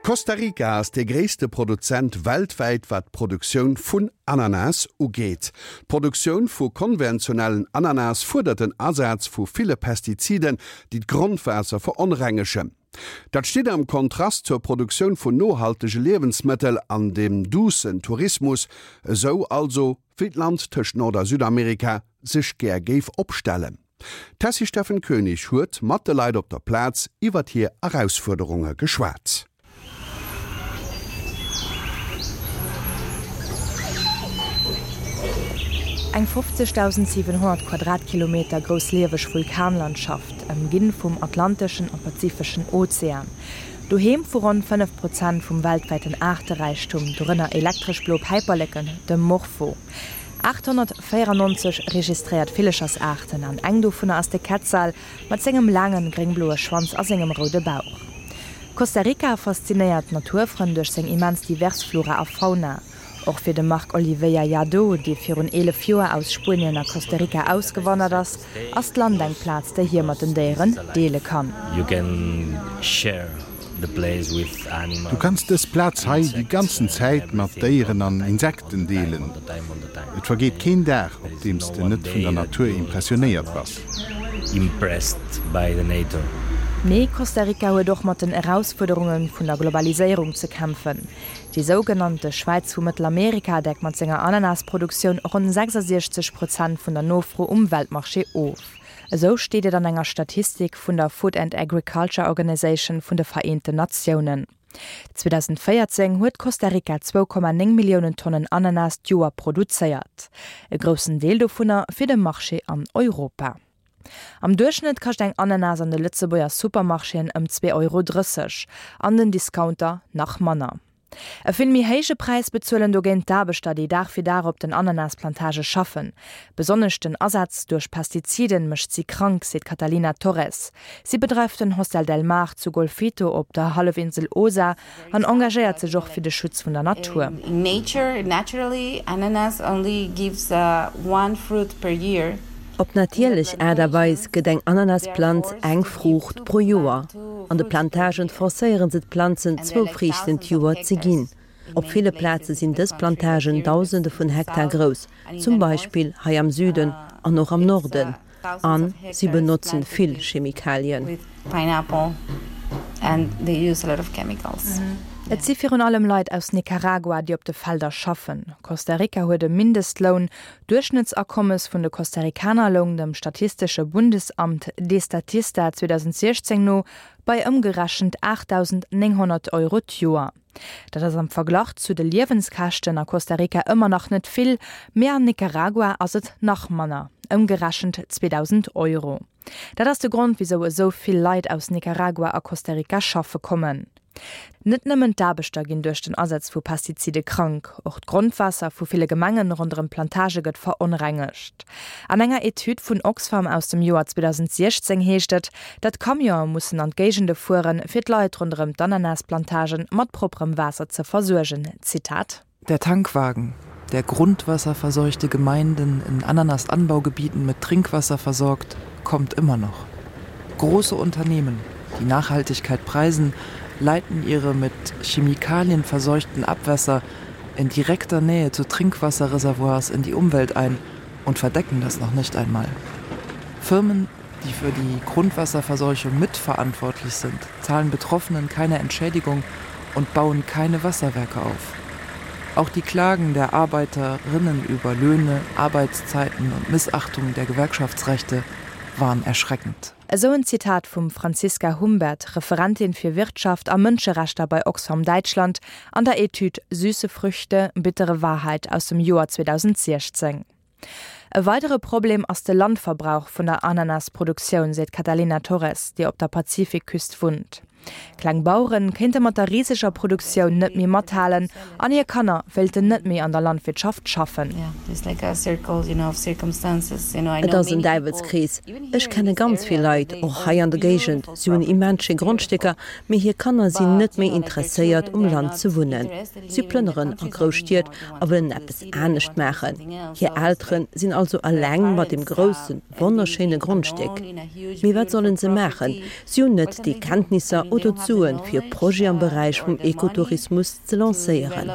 Costa Rica ass dee gréisste Produzent weltwäit wat d'Produktioun vun Ananas ugeet. D'Produktioun vu konventionellen Ananas fuerdert den Asaz vu ville Pestiziden, déi d'Grondwaasser veronrengegen. Dat steet am Kontrast zur Produktioun vun nohaltege Liewensmëttel an dem duussen Tourismus, esou also wéi d'Land tëscht Nord a Südamerika sech gär géif opstellen. D'Tessy Steffen Koenig huet mat de Leit op der Plaz iwwert hir Erausfuerderunge geschwat. Eng 50.700 Quadratkilometer grouss lieweg Vulkanlandschaft, ëmginn vum Atlanteschen a Pazifeschen Ozean. Doheem vu ronn 5 Prozent vum weltwäiten Aarteräichtum, dorënner elektresch blo Päiperleken, dem Morpho. 894 registréiert Villechersaarten an eng dovunner ass de Quetzal mat sengem laangen gréngbloe Schwanz a sengem roude Bauch. Costa Rica faszinéiert d'Naturfrënn duerch seng immens divers Flora a Fauna. Och fir de Marc Oliveira Lladó, dee virun 11 Joer aus Spuenien a Costa Rica ausgewandert ass, ass d'Land eng Plaz, déi hie mat den Déieren deele kann. Du kanns dës Plaz hei déi ganzen Zäit mat Déieren an Insekten deelen. Et vergeet keen Dag, op deem s de net vun der Natur impressionéiert bass. Mee Costa Rica huet och mat den Erausfuerderunge vun der Globaliséierung ze kämpfen. Déi sougenannte Schwäiz vu Mëttelamerika deckt mat senger Ananasproduktioun ronn 66 Prozent vun der Nofro um Weltmarché of. Esou steet et an enger Statistik vun der Food and Agriculture Organization vun de Vereenten Natiounen. 2014 huet Costa Rica 2,9 Milliounen Tonnen Ananas d'Joer produzéiert, e groussen Deel dovunner fir de Marché an Europa. Am Duerchschnëtt kascht eng Ananas an de Lëtzebuerger Supermarchéen ëm 2,30 Euro, an den Discounter nach manner. E vill méi héije Präis bezuelen dogéint d'Aarbechter, déi Dag fir Dag op den Ananasplantage schaffen. Besonnesch den Asaz duerch Pestiziden mécht si krank, seet d'Catalina Torres. Si bedreift den Hostel del Mar zu Golfito op der Hallefinsel Osa an engagéiert sech och fir de Schutz vun der Natur. Op natierlech Aart a Weis gëtt eng Ananasplanz eng Fruucht pro Joer. An de Plantagen forcéiere se d'Planzen zwou Friichten d'Joer ze ginn. Op ville Plaze sinn dës Plantagen Dausende vun Hektar grouss, zum Beispill hei am Süden an och am Norden. A si benotzen vill Chemikalien. Et si virun allem Leit aus Nicaragua, déi op de Felder schaffen. Costa Rica huet e Mindestloun. D'Duerchschnëttsakommes vun de Costa-Ricaner loung dem statistesche Bundesamt Destatista 2016 no bei ëmgerechent 8.900 Euro d'Joer. Dat ass am Verglach zu de Liewenskäschten a Costa Rica ëmmer nach net vill, mee an Nicaragua ass et nach manner, ëmgerechent 2.000 Euro. Dat ass de Grond, wisou esou vill Leit aus Nicaragua a Costa Rica schaffe kommen. Net nëmmen d'Aarbechter ginn duerch den Asaz vu Pestizide krank, och d'Grondwaasser vu ville Gemengen ronderëm d'Plantage gëtt veronrengegt. An enger Etüd vun Oxfam aus dem Joer 2016 heescht et, datt Camionë mussen an d'Géigende fueren, fir d'Leit ronderëm d'Ananasplantagen mat propperem Waasser ze versuergen. Zitat. Der Tankwagen, der grundwasserverseuchte Gemeinden in Ananasanbaugebieten mit Trinkwasser versorgt, kommt immer noch. Große Unternehmen, die Nachhaltigkeit preisen, leiten ihre mit Chemikalien verseuchten Abwässer in direkter Nähe zu Trinkwasserreservoirs in die Umwelt ein und verdecken das noch nicht einmal. Firmen, die für die Grundwasserverseuchung mitverantwortlich sind, zahlen Betroffenen keine Entschädigung und bauen keine Wasserwerke auf. Auch die Klagen der Arbeiterinnen über Löhne, Arbeitszeiten und Missachtung der Gewerkschaftsrechte waren erschreckend. Esou en Zitat vum Franziska Humbert, Referentin fir Wirtschaft a Mënscherechter bei Oxfam Däitschland, an der Etüd Süße Früchte, bittere Wahrheit aus dem Joer 2016. E weidere Problem ass de Landverbrauch vun der Ananasproduktioun, seet d'Catalina Torres, déi op der Pazifikküst wunnt. Kleng Bauere kéinte mat der riseger Produktioun net méi mathalen an hir Kanner wéilten net méi an der Landwirtschaft schaffen. Et ass en Däiwelskrees. Ech kenne ganz vill Leit, och hei an der Géigend, si hunn immens schéi Grondstécker, mee hir Kanner sinn net méi interesséiert, um Land ze wunnen. Si plënneren a grouss Stied a wëllen eppes anescht maachen. Hir Eltere sinn also eleng mat deem groussen, wonnerschéine Grondstéck. Mee wat sollen se maachen? Si hunn net déi Kenntnisser. oder d'Suen, fir e Projet am Beräich vum Ekotourismus ze lancéieren.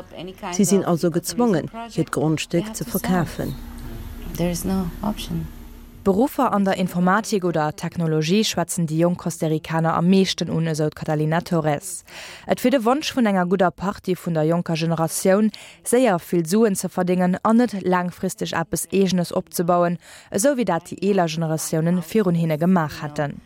Si sinn also gezwongen, hiert Grondstéck ze verkafen. Beruffer an der Informatik oder Technologie schwätzen déi jonk Costa-Ricaner am meeschten un, esou d'Catalina Torres. Et wier de Wonsch vun enger gudder Partie vun der jonker Generatioun, séier vill Suen ze verdéngen an net laangfristeg eppes Eegenes opzebauen, esou wéi dat déi eeler Generatiounen virun hinne gemaach hätten.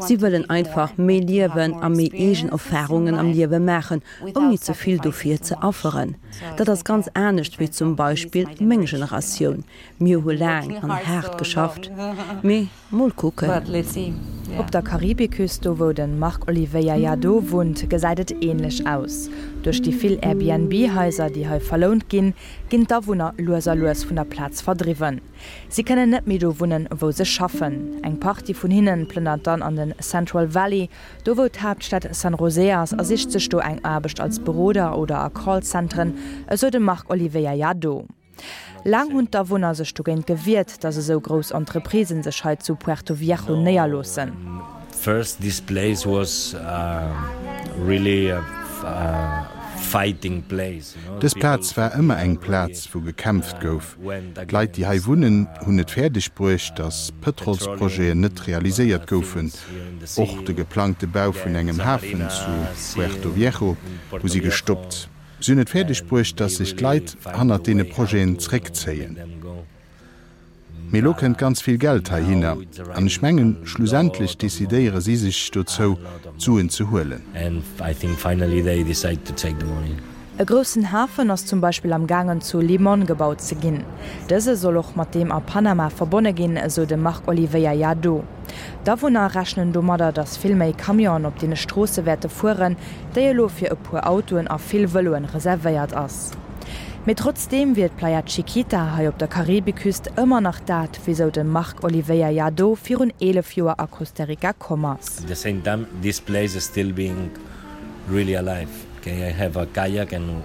Si wëllen einfach méi liewen a méi eegen Erfarungen am Liewe maachen, ouni ze vill dofir ze afferen. Dat ass ganz anescht wéi zum Beispill meng Generatioun. Mir hu laang an haart geschafft, mee mol kucken. Op der Karibiküst, do wou de Marc Oliveira Jadot wunnt, gesäit et änlech aus. Duerch déi vill Airbnb-Haiser, déi hei verlount ginn, ginn d'Awunner lues a lues vun der Plaz verdriwwen. Si kënnen net méi do wunnen, wou se schaffen. Eng Partie vun hinnen plënnert dann an den Central Valley, do wou d'Haaptstad San José ass, a sicht sech do eng Aarbecht als Beroder oder a Callcenteren, esou de Marc Oliveira Jadot. Laang hunn d'Awunner sech dogéint gewiert, datt esou grouss Entreprisen sech hei zu Puerto Viejo néierloossen. First this place was really a fighting place. Dës Plaz war ëmmer eng Plaz, wou gekämpft gouf. D'Leit, déi hei wunnen, hunn et fäerdeg bruecht, datt Pëtrolsprojeten net realiséiert goufen. Och de geplangte Bau vun engem Hafen zu Puerto Viejo hu si gestoppt. Si hunn et fäerdeg bruecht, datt sech d'Leit hannert deene Projeten zréckzéien. Mee elo kënnt ganz vill Geld heihinner an ech mengen, schlussendlech decidéiere si sech dozou, d'Suen ze huelen. E groussen Hafen ass zum Beispill am gaangen zu Limón gebaut ze ginn. Dëse soll och mat deem a Panama verbonne ginn, esou de Marc Oliveira Lladó. D'Awunner rechnen domadder, datt vill méi Camionen op deene Stroosse wäerte fueren, déi elo fir e puer Autoen a vill Vëloen reservéiert ass. Mee trotzdeem wier d'Playa Chiquita hei op der Karibiküst ëmmer nach dat, wisou de Marc Oliveira Lladó virun 11 Joer a Costa Rica komm ass. At the same time this place is still being really alive, okay, I have a kayak and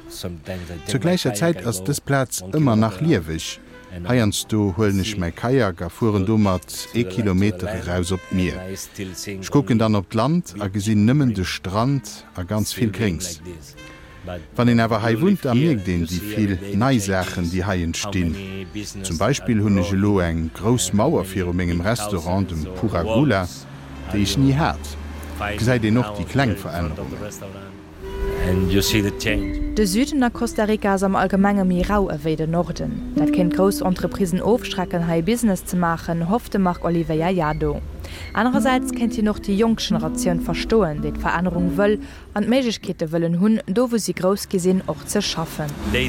sometimes I take Zur my gläicher kayak, Zäit I ass go dës Plaz one ëmmer nach kilometer lieweg. and Heiansdo huelen ech see mäi Kajak a fueren to domat to ee the to the Kilometer land eraus op and d'Mier. I still Ech seeing kucken only dann op d'Land a beach gesinn nëmmen de green Strand a ganz still vill being Gréngs. like this. But Wann een awer hei you live wunnt, da here mierkt and een you déi see vill every day the nei Saachen, changes, déi hei how entstinn. many Zum business are Beispill hunn ech elo growing eng grouss and how Mauer many viru mengem big Restaurant, houses dem or Pura Gula, walls are déi ech ni you hat. Gesäit finding een och now déi kleng here in front of the Verännerungen. restaurant and you see the change. De Süden a Costa Rica ass am Allgemenge méi rau ewéi den Norden. Dat kéint grouss Entreprisen ofschrecken, hei Business ze maachen, hofft de Marc Oliveira Llado. Anerersäits kéint hien och déi jonk Generatioun verstoen, déi d'Verännerung wëll An d'Méiglechkeete wëllen hunn, do wou si grouss gi sinn, och ze schaffen. Déi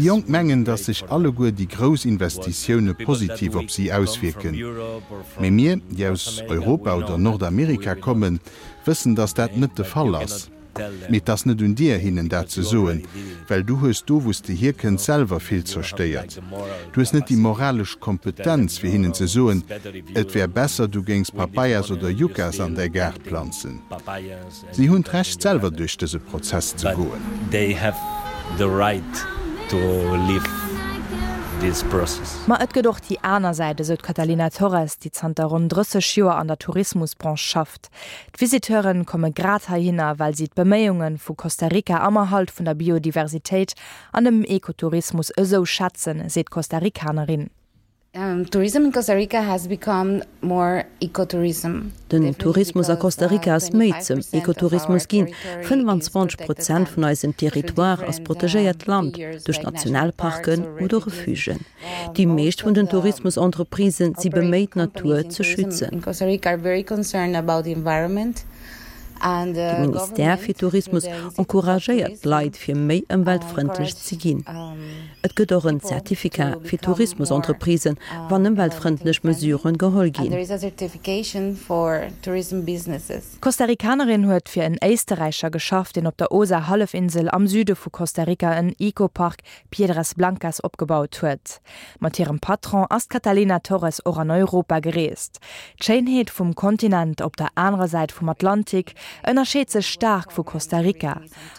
Jonk mengen, datt sech alleguer déi grouss Investitioune positiv op si auswierken. Mee mir, déi aus Europa oder Nordamerika kommen, wëssen, datt dat net de Fall ass. Mee 't ass net un dir, hinnen dat ze soen, well du hues do, wou s de hierkënns, selwer vill zerstéiert. Du hues net déi moralesch Kompetenz, fir hinnen ze soen, et wär besser, du géings Papayas oder Yuccas an däi Gaart planzen. Si hunn d'Recht, selwer duerch dëse Prozess ze goen. Ma et gëtt och déi aner Säit, esou d'Catalina Torres, déi zanter ronn 30 Joer an der Tourismusbranche schafft. D'Visiteure komme grad heihinner, well si d'Beméiunge vu Costa Rica am Erhalt vun der Biodiversitéit an dem Ekotourismus esou schätzen, seet d'Costa Ricanerin. Tourism in Costa Rica has become more ecotourism. Den Tourismus a Costa Rica ass méi zum Ekotourismus ginn. 25 Prozent vun eisem Territoire ass protegéiert Land duerch Nationalparken oder Refugen. Déi meescht vun den Tourismusentreprisen si beméit d'Natur ze schützen. De Ministère fir Tourismus encouragéiert d'Leit fir méi ëmweltfrëndlech ze ginn. Et gëtt och en Certificat fir Tourismusentreprisen, wann ëmweltfrëndlech Mesuren geholl ginn. D'Costa-Ricanerin huet fir en Éisterräicher geschafft, deen op der Osa-Hallefinsel am Süde vu Costa Rica en Eco-Park Piedras Blancas opgebaut huet. Mat hirem Patron ass d'Catalina Torres och an Europa gereest. D'Schéinheet vum Kontinent op der anerer Säit vum Atlantik ënnerscheet sech staark vu Costa Rica.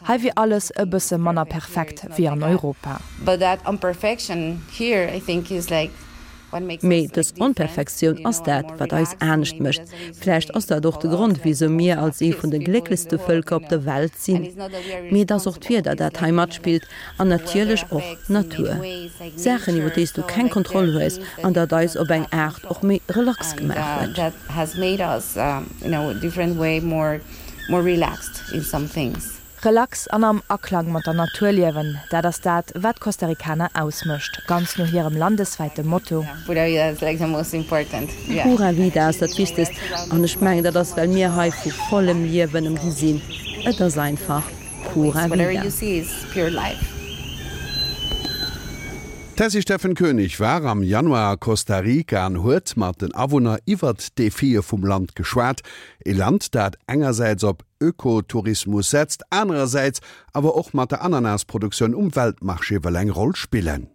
Hei wier alles e bësse manner perfekt wéi an Europa. But that imperfection here I think is like. Mee dës Onperfektioun ass dat, wat eis anescht mécht. Vläicht ass dat och de Grond, wisou mir als ee vun de glécklechste Vëlker op der Welt sinn. Mee et ass och d'Wieder, dat hei matspillt an natierlech och d'Natur. Saachen, iwwer déi s du keng Kontroll hues an dat eis op eng Aart och méi relax gemaach huet. Relax an am Aklang mat der Natur liewen, dat ass dat, wat d'Costa Ricaner ausmécht, ganz no hirem landeswäite Motto. Pura Vida ass dat Wichtegst an ech mengen, dat ass, well mir hei vu vollem Liewen ëmgi sinn. Et ass einfach Pura Vida. D'Tessy Steffen Koenig war am Januar a Costa Rica an huet mat den Awunner iwwert d'Defie vum Land geschwat. E Land, dat engersäits op Ökotourismus setzt, anerersäits awer och mat der Ananasproduktioun um Weltmarché wëll eng Roll spillen.